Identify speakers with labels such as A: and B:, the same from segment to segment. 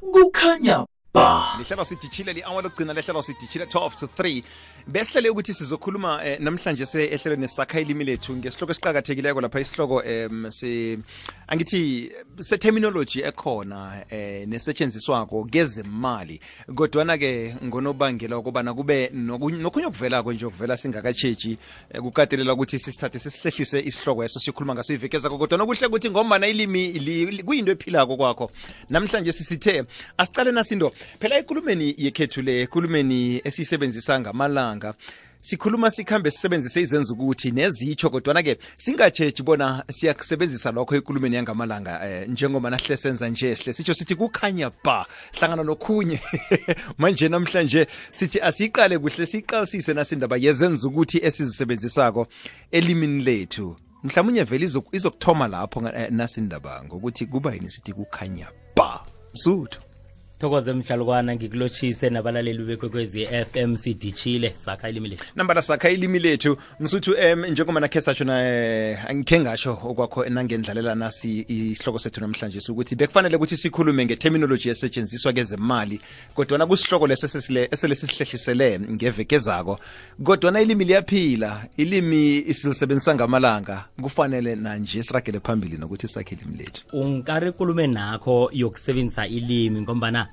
A: kukhanya ba.
B: Lihlelo sidijile li-hour lokugcina lehlelo sidijile 12 to 3 besihlele ukuthi sizokhuluma namhlanje ehlelweni sakha ilimi lethu ngesihloko esiqhakathekileko lapha isihloko angithi se-terminology ekhona nesetshenziswako kezemali kodwana ke ngonobangela ukubana kube nokhunye okuvelako nje okuvela singakatshetshi kukatelela ukuthi sisithathe sisihlehlise isihloko eso sikhuluma ngaso ivekezako kodwana kuhle ukuthi ngombana ilimi kuyinto ephilako kwakho namhlanje sisithe asicale nasinto phela ekulumeni yekhethu le ekulumeni esiyisebenzisa ngamalanga sikhuluma sikhambe sisebenzise izenza ukuthi nezitsho kodwana ke singatshetshi bona siyakusebenzisa lokho ekulumeni yangamalanga njengoba nahle senza nje sihle sitsho sithi kukhanya ba hlangana nokhunye manje namhlanje sithi asiqale kuhle siqalisise nasindaba yezenza ukuthi esizisebenzisako elimini lethu mhlawumnye vele izokuthoma lapho nasindaba ngokuthi kuba yini sithi kukhanya ba msuthu
C: Thokoze mhlalukwana ngikulochise nabalaleli bekwekwezi FM sidijile sakha ilimi lethu.
B: Nambala sakha ilimi lethu msuthu njengoba nakhe satsho na angikhe ngasho okwakho nangendlalela nasi isihloko sethu namhlanje ukuthi bekufanele ukuthi sikhulume ngeterminology esetshenziswa kezemali kodwa kusihloko lesesisihlehlisele ngevekezako kodwa ilimi liyaphila ilimi isilisebenzisa ngamalanga kufanele nanje siragele phambili nokuthi sakhe ilimi lethu.
C: Ungikare khulume nakho yokusebenzisa ilimi ngombana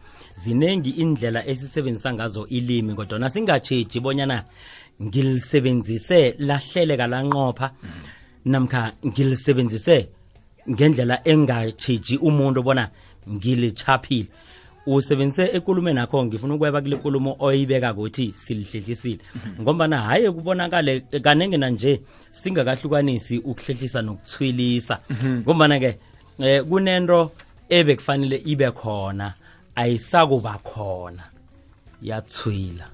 C: zinengi indlela esisebenzisa ngazo ilimi kodwa singatsheji bonyana ngilisebenzise lahleleka lanqopha namkha ngilisebenzise ngendlela engatsheji umuntu bona ngilichaphile usebenzise ekulumeni nakho ngifuna ukweba kule nkulumo oyibeka ukuthi silihlehlisile ngombana haye kubonakale kanenge nanje singakahlukanisi ukuhlehlisa nokuthwilisa ngombana ke kunento ebekufanele ibe khona ayisakuba khona yathwila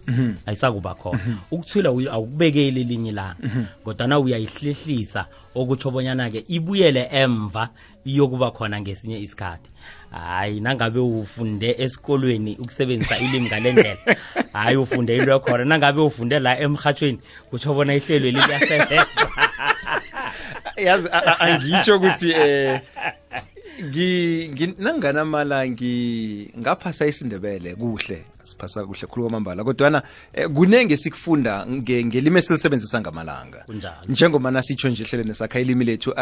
C: ayisakuba khona ukuthwila awukubekeli linye langa kodwa uyayihlehlisa okutsho bonyana ke ibuyele emva iyokuba khona ngesinye isikhathi hayi nangabe ufunde esikolweni ukusebenzisa ilimi ngalendlela hayi ufunde into yakhona nangabe ufunde la emhathweni kutsho bona ihlelo liyasebenza
B: yazi angitsho ukuthi nangana mala ngaphasa isindebele kuhle siphasa kuhle khulu kwamambala kodwana kunenge sikufunda ngelimi esilisebenzisa ngamalanga njengoba nasitsho nje ehlelweni sakha ilimi lethu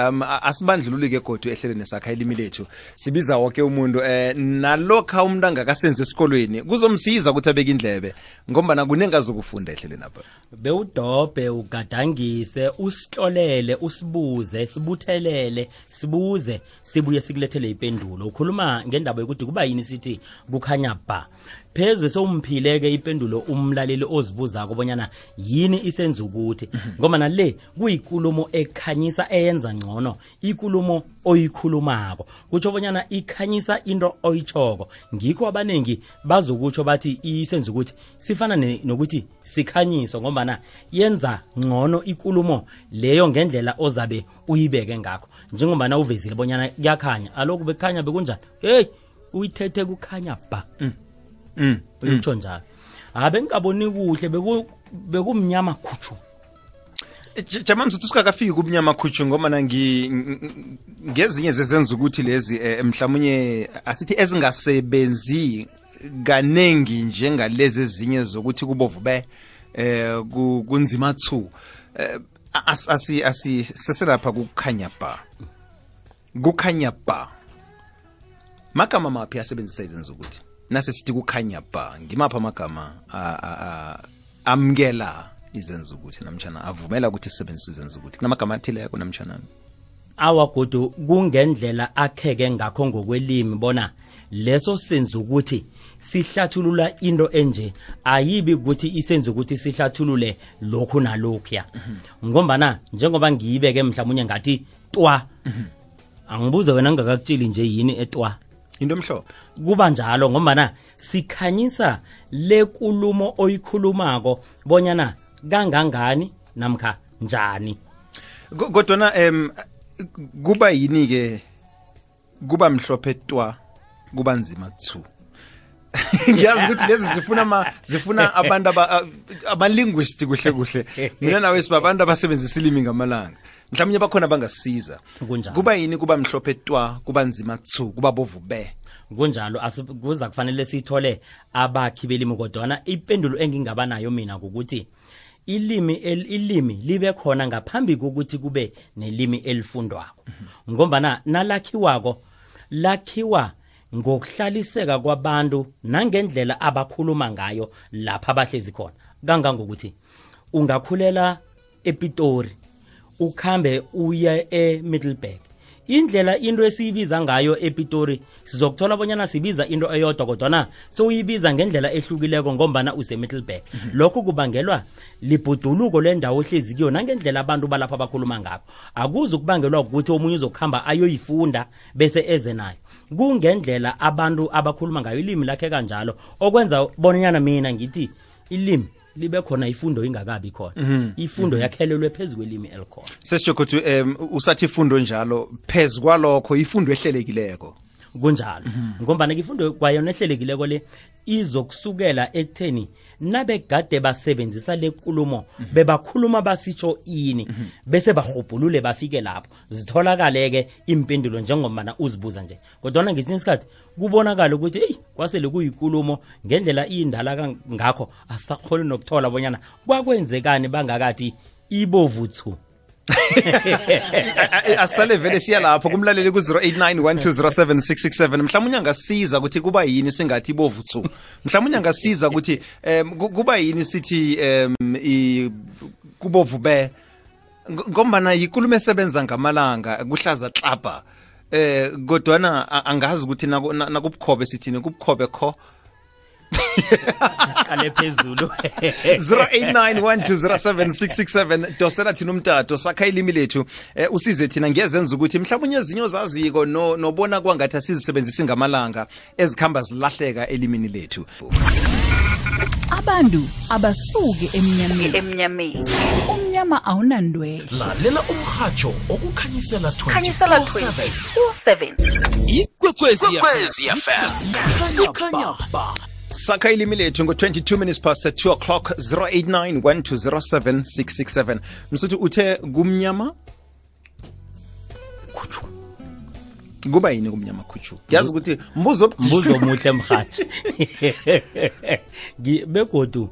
B: asibandlululike kodwa ehlelweni sakha ilimi lethu sibiza wonke umuntu nalokho umuntu angakasenze esikolweni kuzomsiza ukuthi abeke indlebe ngoba kunenge azokufunda ehlelweni apha
C: bewudobhe ugadangise usihlolele usibuze sibuthelele sibuze sibuye sikulethele ipendulo ukhuluma ngendaba yokuthi kuba yini sithi kukhanya ba pheze somphileke ipendulo umlaleli ozibuza kubonyana yini isenza ukuthi ngoba nale kuyinkulumo ekhanyisa eyenza ngcono ikulumo oyikhulumako kutsho bonyana ikhanyisa into oyichoko ngikho abanengi bazokutsho bathi isenza ukuthi sifana nokuthi sikhanyiso ngoba yenza ngcono ikulumo leyo ngendlela ozabe uyibeke ngakho njengoba uvezile bonyana kuyakhanya aloku bekhanya bekunjani hey uyithethe kukhanya ba uyitsho njalo abengikaboni kuhle bekumnyama khutshu
B: jama msuthu sikakafiki kumnyama khutshu ngoba ngezinye zezenza ukuthi lezi mhlawumnye asithi ezingasebenzi kanengi njengalezi ezinye zokuthi kubovu be kunzima thu seselapha kukhanya ba magama maphi asebenzisa izenza ukuthi nase sithi kukhanya ba ngimapha amagama amkela izenza ukuthi namtjana avumela ukuthi sisebenzise izenza ukuthi kunamagama athile yakho namtjana
C: awagodo kungendlela akheke ngakho ngokwelimi bona leso senza ukuthi sihlathulula into enje ayibi ukuthi isenza ukuthi sihlathulule lokhu nalokhuya ngombana njengoba ngiyibeke mhlawumnye ngathi twa angibuze wena ngakakutshili nje yini etwa
B: into emhlophe
C: kuba njalo ngombana sikhanyisa lekulumo oyikhulumako bonyana kangangani namkha njani
B: kodwa kuba yini ke kuba mhlophe twa kuba nzima thu ngiyazi ukuthi lezi zifuna abantu abalinguisti kuhle mina nawe sibabantu abasebenzisa ilimi ngamalanga mhlawumnye bakhona bangasisiza kuba yini kuba mhlophe twa kuba nzima thu kuba bovu be
C: kunjalo kuza kufanele sithole abakhi belimi kodwana ipendulo engingaba nayo mina ukuthi ilimi libe khona ngaphambi kokuthi kube nelimi elifundwako ngombana lakhiwa ngokuhlaliseka kwabantu nangendlela abakhuluma ngayo lapha abahlezi khona kangangokuthi ungakhulela ePitori ukhambe uye eMiddelburg indlela into esiyibiza ngayo ePitori sizokuthola bonyana sibiza into eyodwa kodwana soyibiza ngendlela ehlukileko ngombana useMiddelburg lokho kubangelwa libhuduluko lendawo ohlezi kiyo nangendlela abantu balapha abakhuluma ngabo akuzi ukubangelwa ukuthi omunye uzokuhamba ayoyifunda bese eze nayo kungendlela abantu abakhuluma ngayo ilimi lakhe kanjalo okwenza bonanyana mina ngithi ilimi libe khona ifundo ingakabi khona ifundo yakhelelwe phezulu kwelimi elikhona
B: sesijokuthi usathi ifundo njalo phezulu kwalokho ifundo ehlelekileko
C: kunjalo ngombana ifundo kwayona ehlelekileko le izokusukela ekutheni nabegade basebenzisa lenkulumo bebakhuluma basitsho ini bese bahobhulule bafike lapho zitholakaleke impendulo njengomana uzibuza nje kodwa ngesinye isikhathi kubonakala ukuthi kwasele kuyinkulumo ngendlela indala ngakho asakhole nokuthola bonyana kwakwenzekani bangakathi ibovuthu
B: asale vele siya lapho kumlaleli ku 0891207667 mhlawumnye angasiza ukuthi kuba yini singathi ibovuthu mhlawumnye angasiza ukuthi kuba yini sithi kubovube ngombana yinkulumo esebenza ngamalanga kuhlaza xapha kodwana angazi ukuthi nakubukhobe sithini kubukhobe kho
C: siqale phezulu
B: 0891207667 dosela thina umtato sakha ilimi lethu usize thina ngezenza ukuthi mhlawumnye ezinyo zaziko nobona kwangathi asizisebenzisi ngamalanga ezikhamba zilahleka elimini lethu
D: abantu abasuke emnyameni umnyama awunandwele
A: lalela umhajo okukhanyisela 24/7
E: ikwekwezi FM
A: kukhanya ba
B: sakha ilimi lethu ngo-22 minutes past 2 o'clock 0891207667 msuthi uthe kumnyama khuchu kuba yini kumnyama khuchu yazi ukuthi mbuzo
C: omuhle mhathi begodu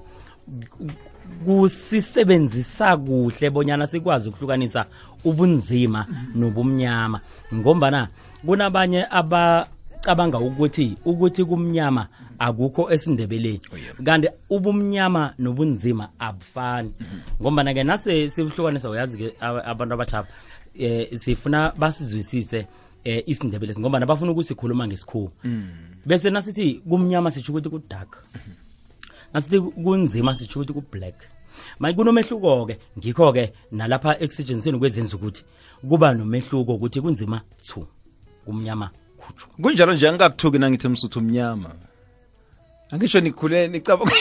C: kusisebenzisa kuhle bonyana sikwazi ukuhlukanisa ubunzima nobumnyama ngombana kunabanye abacabanga ukuthi kumnyama akukho esindebeleni kanti ubumnyama nobunzima abufani ngombana ke nase sibuhlukanisa uyazi ke abantu abachapha sifuna basizwisise isindebele ngombana bafuna ukusikhuluma ngesikhuwa bese nasithi kumnyama sitsho ukuthi ku dark nasithi kunzima sitsho ukuthi ku black manje kunomehluko ke ngikho ke nalapha exigency kwezenza ukuthi kuba nomehluko ukuthi kunzima thu kumnyama khuchu
B: kunjalo nje angakuthuki nangithi msuthu umnyama angisho nikhule nicabanga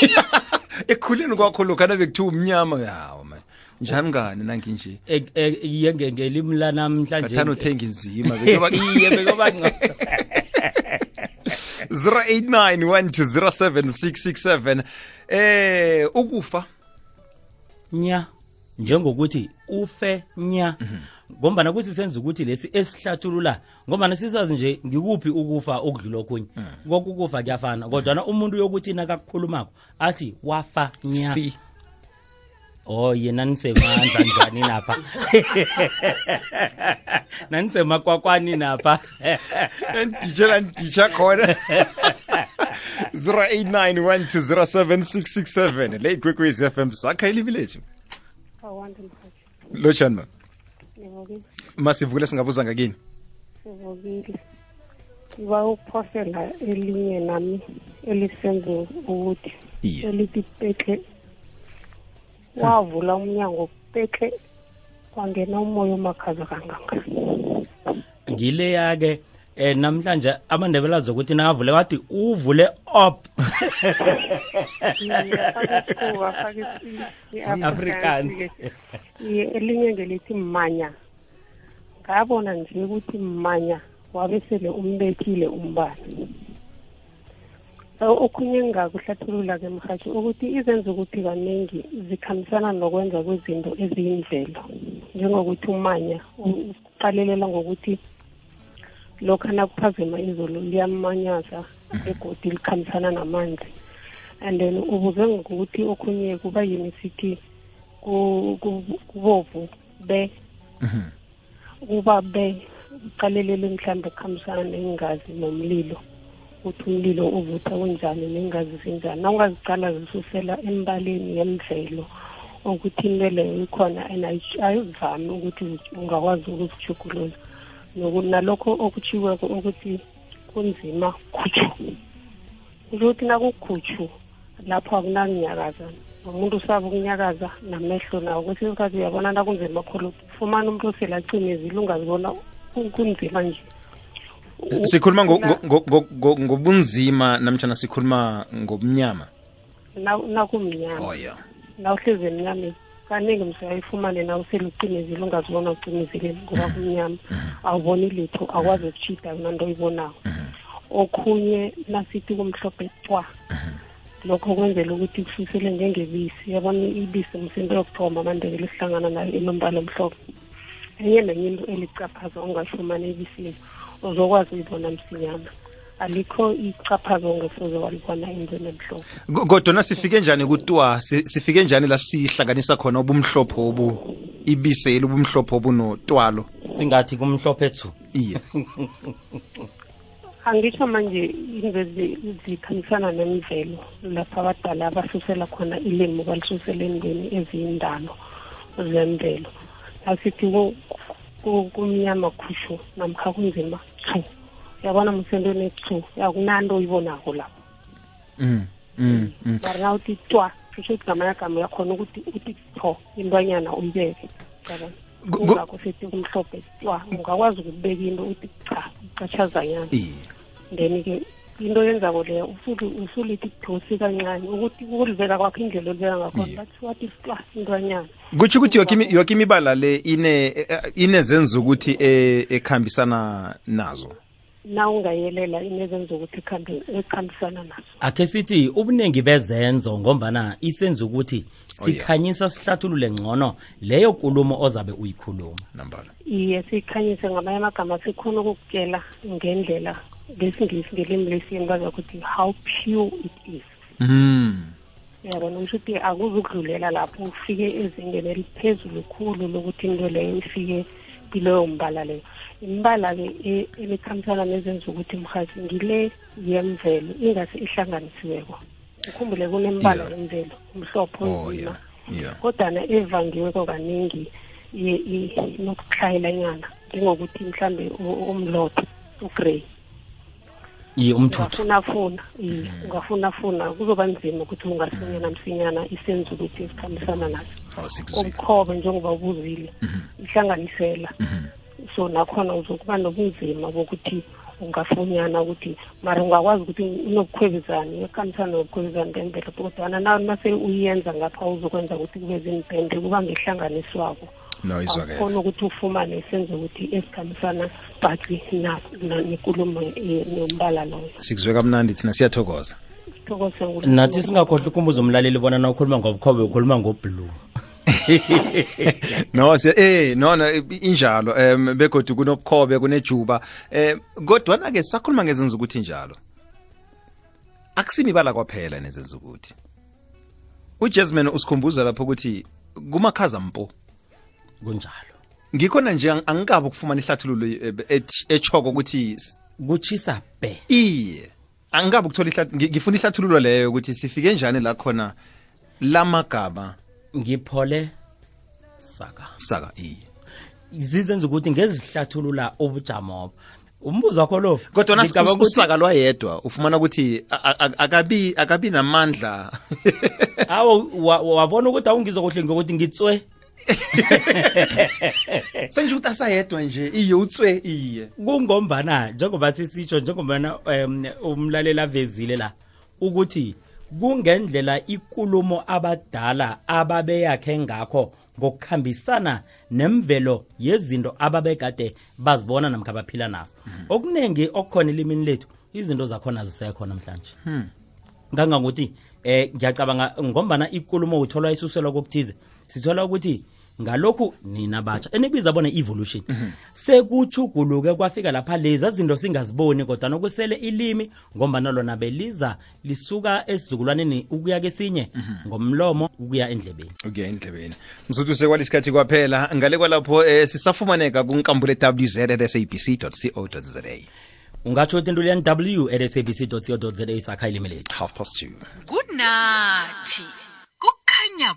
B: ekukhuleni kwakho lokho nabekuthiwa umnyama yawo man njani ngani nangi nje
C: yenge ngelimi la namhlanje
B: kathana uthenga inzima bekuba 0891207667 ukufa
C: nya njengokuthi ufe nya ngombana kusisenza ukuthi lesi esihlathulula ngombana sisazi nje ngikuphi ukufa okudlula okunye konke ukufa kuyafana kodwa umuntu yokuthi nakakhulumako athi wafa nya yena nisemandla njani napha nanisemakwakweni napha
B: nditshela khona 0891207667 le ikwekwezi FM sakha ilimi lethu lotshani ma masivukile singabuza ngakini
F: sivukile siba ukuphosela elinye nami elisenze ukuthi elithi pekle wavula umnyango pekle kwangena umoya omakhaza kangaka
C: ngileya ke namhlanje amandebela zokuthi navule wathi uvule up Afrikaans
F: elinye ngelithi manya ngabona nje ukuthi manya wabesele umbethile umbane okhunye ngakuhlathulula ke mhathi ukuthi izenza ukuthi kaningi zikhambisana nokwenza kwezinto eziyimvelo njengokuthi umanya uqalelela ngokuthi lokho nakuphazima izulu liyamanyaza begodi likhambisana namanzi. And then ubuze ngokuthi okhunye kuba yini sithi kubovu be kuba be uqalelele mhlambe kukhambisana nengazi nomlilo, uthi umlilo uvutha kunjani nengazi zinjani. Nawungazicala zisusela embaleni yemvelo ukuthi into leyo ikhona and ayivami ukuthi ungakwazi ukuzijugulula. Nalokho okutshiweko ukuthi kunzima khutshu, ukuthi nakukhutshu lapho akunakunyakaza, umuntu usaba ukunyakaza namehlo nawo. Kwesinye isikhathi uyabona nakunzima khulu, ufumana umuntu oselacimezile ungazibona kunzima nje.
B: Sikhuluma ngobunzima namtjana sikhuluma ngobumnyama?
F: Nakumnyama.
B: Oh yeah.
F: Nawuhlezi emnyameni kaningi msayifumane nawuselucimezile ungazibona ucimezile ngoba kumnyama, awuboni litho, akwazi ukuchita nanto oyibonako. Okhunye nasithi kumhlophe cwa, lokho kwenzela ukuthi kususele njengebisi. Yabona ibisi msinto yokuthoma amandebele sihlangana nayo enombala omhlophe. Enye nenye into elicaphaza ungayifumana ebisini uzokwazi uyibona msinyana. Alikho icaphaza ongesoze walibona endweni emhlophe.
B: Kodwa nasifike njani kutwa, sifike njani la sihlanganisa khona ubumhlophe obu ibise elubumhlophe obu notwalo?
C: Singathi kumhlophe ethu.
B: Iye.
F: Angisho manje into zikhamisana nemvelo lapha abadala abasusela khona ilimi balisusela endweni eziyindalo zemvelo. Asithi kumnyama khushu namkha kunzima chu, yabona msendweni chu yakunanto oyibonako lapho. Mara nawuthi twa kusho ukuthi ngamanyagama yakhona ukuthi uthi tho intwanyana uyibeke, yabona. Kungakho sithi kumhlophe twa, ungakwazi ukubeka into uthi cha ucatshazanyana. Then-ke into yenzako leyo usulithi thosi kancane ukuthi ukuliveka kwakho indlela oliveka ngakhona, that's what is twa intwanyana.
B: Kutsho ukuthi yoke imibala le inezenza ukuthi ekhambisana nazo.
F: Na ungayelela inezenza ukuthi ekhambisana nazo.
C: Akhe sithi ubuningi bezenzo ngombana isenza ukuthi sikhanyisa sihlathulule ngcono leyo nkulumo ozabe uyikhuluma.
B: Nambala.
F: Iye, sikhanyise ngamanye amagama sikhona ukukutshela ngendlela ngesingisi ngelimi lesiyeni bazakuthi how pure it is. Yabona ukuthi akuzukudlulela lapho ufike ezingeni eliphezulu khulu lokuthi into leyo ifike kuleyo mbala leyo. Imbala-ke elikhambisana nezenza ukuthi mhathi ngile yemvelo ingase ihlanganisiweko. Ukhumbule kunembala yemvelo umhlophe onzima, kodwana evangiweko kaningi nokuhlayela nyana njengokuthi mhlambe umlotha ugrey.
C: Umthuthu
F: ungafuna kuzoba nzima ukuthi ungasinyana msinyana isenza ukuthi isikhambisana naso. Umkhobe njengoba ubuzile ihlanganisela, so nakhona uzokuba nobunzima bokuthi ungafunyana ukuthi mara ungakwazi ukuthi unobukhwebezane ekhambisana nobukhwebezane bemvelo, kodwana nase uyenza ngapha uzokwenza ukuthi kube zimpende kuba ngehlanganiswako. Khona ukuthi ufumane isenzo ukuthi esikhambisana bhaqi nenkulumo nombala loyo.
B: Sikuzwe kamnandi thina siyathokoza.
C: Nathi singakhohlwa ukumbuza umlaleli bona na ukhuluma ngobukhobe ukhuluma ngoblue.
B: No injalo begodwa kunobukhobe kunejuba kodwa ke sakhuluma ngezenza ukuthi njalo akusimibala kwaphela nezenza ukuthi uJasmine usikhumbuza lapho ukuthi kumakhaza mpo
C: kunjalo.
B: Ngikhona nje angikabi ukufumana ihlathululo echoko ukuthi
C: kuchisa be.
B: Iye, angikabi ukuthola ngifuna ihlathululo leyo ukuthi sifike njani la khona lamagama.
C: Ngiphole saka
B: iye.
C: Zizenza ukuthi ngezihlathulula ubujamo. Umbuzo wakho lo
B: kodwa nasisaka lwayedwa ufumana ukuthi akabi namandla.
C: Awu wabona ukuthi awungizokuhle ngokuthi ngitswe.
B: Senje ukuthi asayedwa nje iye utswe iye.
C: Kungombana njengoba sisitsho njengoba umlalela avezile la ukuthi kungendlela ikulumo abadala ababeyakhe ngakho ngokukhambisana nemvelo yezinto ababekade bazibona namkha baphila nazo. Okunengi okukhona elimini lethu izinto zakhona zisekho namhlanje. Ngangangokuthi ngiyacabanga ngombana ikulumo uthola isuselwa kokuthize. Sithola ukuthi ngalokhu nina batsha enibiza bona evolution sekuchuguluke kwafika lapha lezi izinto singaziboni kodwa nokusele ilimi ngombana lona beliza lisuka esizukulwaneni ukuya kesinye ngomlomo ukuya endlebeni
B: msuthu sekwalisikhathi kwaphela ngale kwalapho sisafumaneka kunkambule www.sabc.co.za
C: ungatsho into leni w@sabc.co.za sakha ilimi lethu
B: 2:30
A: kunathi kukhanya